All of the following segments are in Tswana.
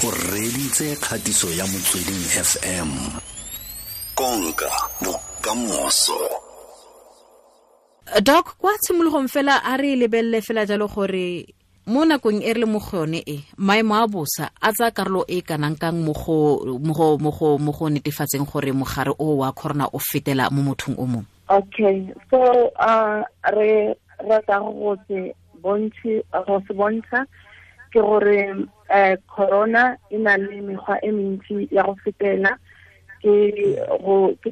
O reditse kgatiso ya Motsweding FM. Konka bokamoso. Doc, kwa tshimologong fela a re lebelele fela jalo gore mo nakong e re le mo go yone e, maemo a bosa a tsaya karolo e kanang kang mo go netefatseng gore mogare o wa corona o fetela mo mothong o mongwe? Okay, so re rata go se bontsha ke gore corona e na le mekgwa e mentsi ya go fetela, ke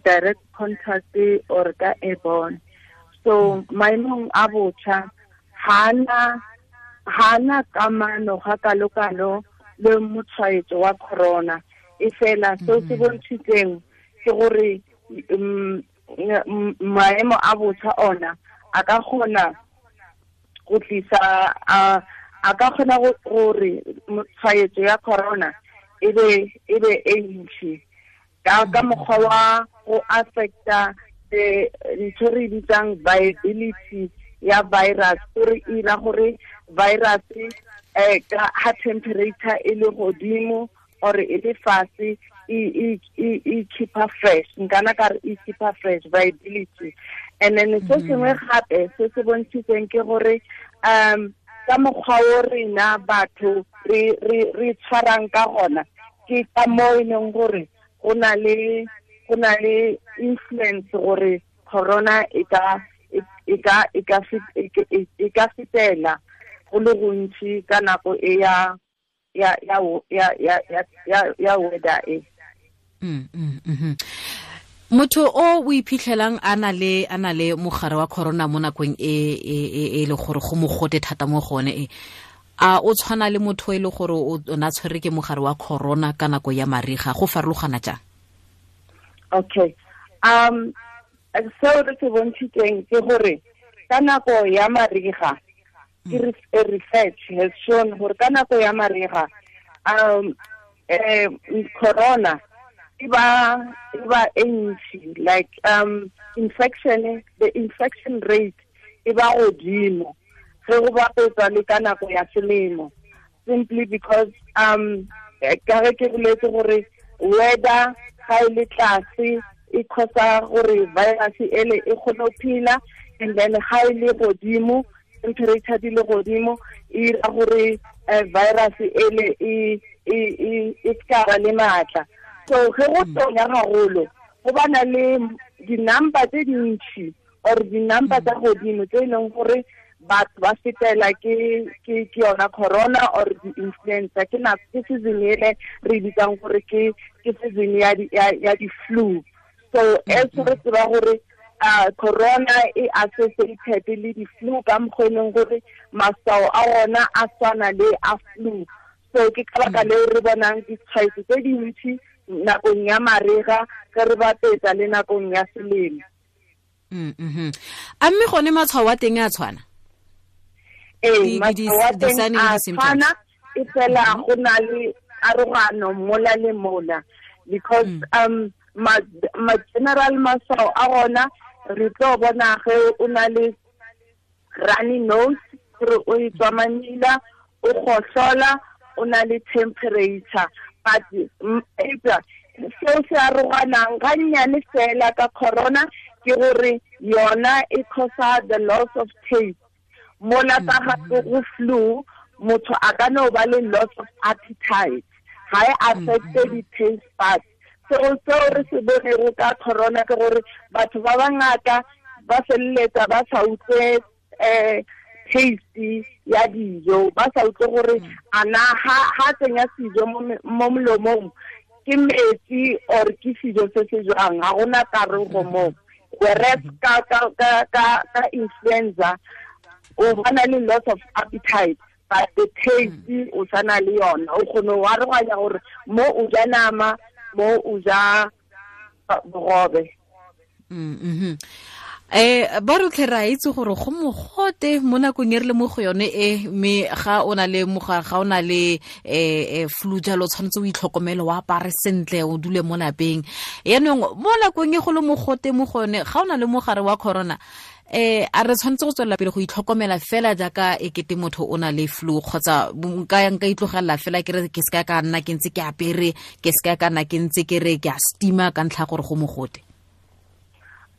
direct contact or ka airborne. So maemong a botjha hana kamano ga kalokalo le motshwaetso wa corona, e fela seo se bontshitseng ke gore maemo a botjha ona a ka kgona go tlisa a ka kgona gore tshwaetso ya corona e be e ntsi ka mokgwa wa go affecta ntho re bitsang viability ya virus, gore e ira gore virus ka ha temperature e le godimo or e le fase e keepa fresh, nkana ka re e keepa fresh viability. And then se sengwe gape se se bontshitseng ke gore ka mokgwa o rena batho re tshwarang ka gona, ke ka mo e leng gore go na le influence gore corona e ka fetela go le gontsi ka nako e ya weather e. Motho o iphitlhelang a na le mogare wa corona mo nakong e le gore go mogote thata mo gone e, a o tshwana le motho e le gore o na tshwere ke mogare wa corona ka nako ya mariga, go farologana jang? Okay, seo re se bontshitseng ke gore ka nako ya mariga, ke research has shown gore ka nako ya mariga corona e ba e ntsi, like infection, the infection rate e ba godimo ge go bapetsa le ka nako ya selemo, simply because ka ge ke boletse gore weather ga e le tlase e causa gore virus ele e kgone go phela, and then ga e le godimo, temperature di le godimo, e ira gore virus ele e ska ba le maatla. So ge go tonya gagolo go bana le di-number tse dintsi or di-number tsa godimo tse e leng gore batho ba fetela ke yona corona or di-influenza. Ke nako ke season ele re bitsang gore ke season ya di-flu. So as re tseba gore corona e associated le di-flu ka mokgwa e leng gore maswao a ona a tshwana le a flu. So ke ka baka leo re bonang ditshwaetso tse dintsi nakong ya mariga ge re bapetsa le nakong ya selemo. A mme gone matshwao a teng a tshwana? Ee, matshwao a teng a tshwana, e fela go na le arogano mola le mola, because ma general maswao a gona re tlo bona ge o na le runny nose, gore o e tswa mamila, o gohlola, o na le temperature. But seo se aroganang ga nnyane fela ka corona ke gore yona e causa the loss of taste. Mola ka gape go flu, motho a ka no ba le loss of appetite, ga e affecte di-taste buds. So seo re se bonego ka corona ke gore batho ba bangata ba feleletsa ba sa utlwe taste ya dijo, ba sa utlwe gore ana ha tsenya sijo mo molomong ke metsi or ke sijo se se jwang, ga gona karogo mo. Whereas ka influenza o bana le loss of appetite, but the taste o sana le yona, o kgone ho aroganya gore mo o ja nama, mo o ja bogobe. Ba rotlhe re a itse gore go mogote mo nakong e re le mo go yone e, mme ga o na le mogare, ga o na le flu jalo, tshwanetse o itlhokomele, o apare sentle, o dule mo lapeng. Yaanong mo nakong e go le mogote mo go yone, ga o na le mogare wa corona, a re tshwanetse go tswelela pele go itlhokomela fela jaaka e kete motho o na le flu, kgotsa nka itlogelela fela ke re ke seka ka nna ke ntse ke apere, ke seka ka nna ke ntse ke re ke a steama ka ntlha gore go mogote?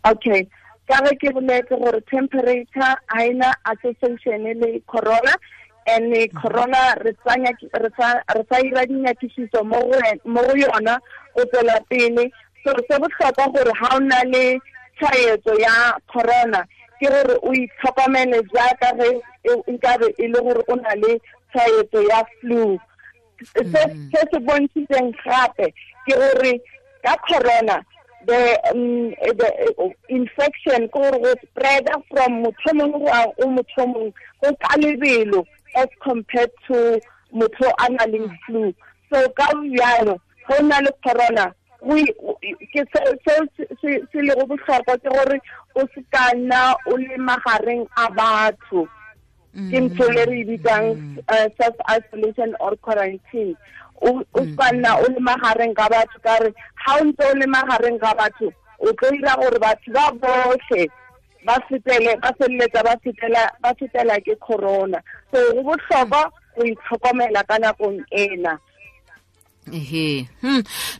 Okay, ka ge ke boletse gore temperature ha ena association le corona, and corona re sa ira dinyakišiso mo go yona go tswela pele. So se bohlokwa gore ha o na le tshwaetso ya corona ke gore o itlhokomele jaaka ge nkabe e le gore o na le tshwaetso ya flu. Se se bontshitseng gape ke gore ka corona the infection go spread from motho mongwe go motho mongwe go ka lebelo as compared to motho a na leng flu. So ka bjalo go na le corona, ke se le go bohlokwa ke gore o se ka nna o le magareng a batho. Ke ntho le re bitsang self isolation or quarantine. O se nna o le magareng ga batho, ka re ha o ntse o le magareng ga batho o tlo dira gore batho ba botlhe ba feleletsa ba fetela ke corona. So go bohlokwa go itlhokomela ka nakong ena. Ehe.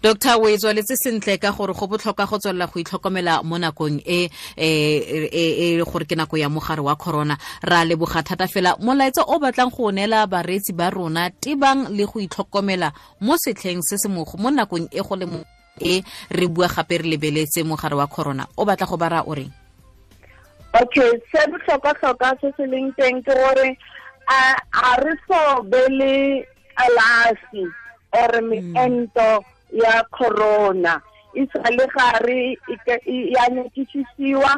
Doctor, o e tswaletse sentle ka gore go botlhokwa go tswelela go itlhokomela mo nakong e e gore ke nako ya mogare wa corona. Ra leboga thata fela. Molaetsa o batlang go neela bareetsi ba rona tebang le go itlhokomela mo setlheng se se mo nakong e go le mo e re bua gape re lebeletse mogare wa corona, o batla go bara o reng? Okay, se botlhokwa-tlhokwa se se leng teng ke gore a re so be le kalafi or meento ya corona e sa le gare ya nyakišisiwa.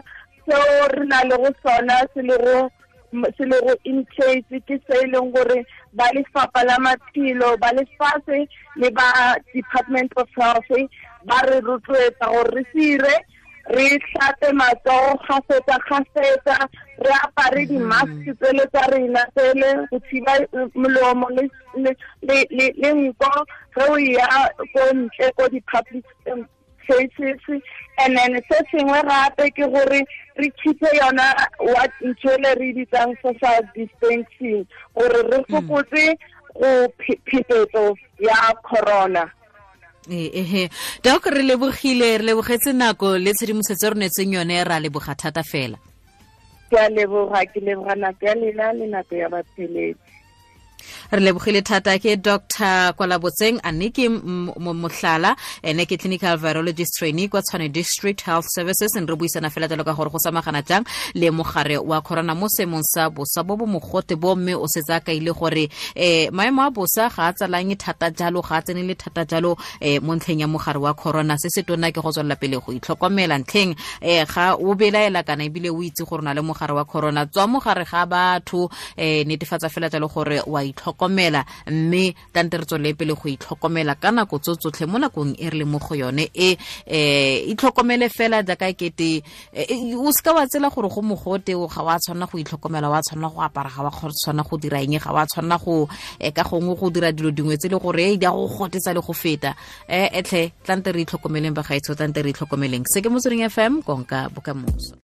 Seo re na le go sona se le go in place ke se e leng gore ba lefapha la maphelo ba lefatshe le ba Department of Health ba re rotloetsa gore re sire re hlape matsogo kgafetsa, re apare di-mask tsele tsa rena tsele go thiba molomo le nko ge o ya ko ntle ko di-public places. And then se sengwe gape ke gore re keep-e yona what ntho ele re bitsang social distancing gore re fokotse go phetetso ya corona. Ehe. Doc, re lebogile, re lebogetse nako le tshedimosetso re neetseng yone, ra leboga thata fela. Ke a leboga, ke leboga nako ya lena le nako ya batheletsi. Re lebogile thata. Ke Dr. Kwalabotseng Anniki Mohlala, ene ke clinical virologist trainee kwa Tshwane District Health Services. Re buisana fela jalo ka gore go samagana jang le mogare wa corona mo seemong sa bosa bo bo mogote bo, mme o setse a kaile gore maemo a bosa ga a tsalanye thata jalo, ga a tsenele thata jalo mo ntlheng ya mogare wa corona. Se se tona ke go tswelela pele go itlhokomela ntlheng ga o belaela kana ebile o itse gore o na le mogare wa corona, tswa mogare ga batho, netefatsa fela jalo gore wa itlhokomela, mme tante re tswelele pele go itlhokomela ka nako tso tsotlhe mo nakong e re le mo go yone e. Itlhokomele fela jaaka kete o seka wa tsela gore go mogote ga wa tshwanela go itlhokomela, wa tshwanela go apara, ga wa tshwanela go dira eng, ga wa tshwanela go ka gongwe go dira dilo dingwe tse le gore di a go gotetsa le go feta. Etlhe tlante re itlhokomeleng bagaetsho, tlante re itlhokomeleng. Se ke Motsweding FM, konka bokamoso.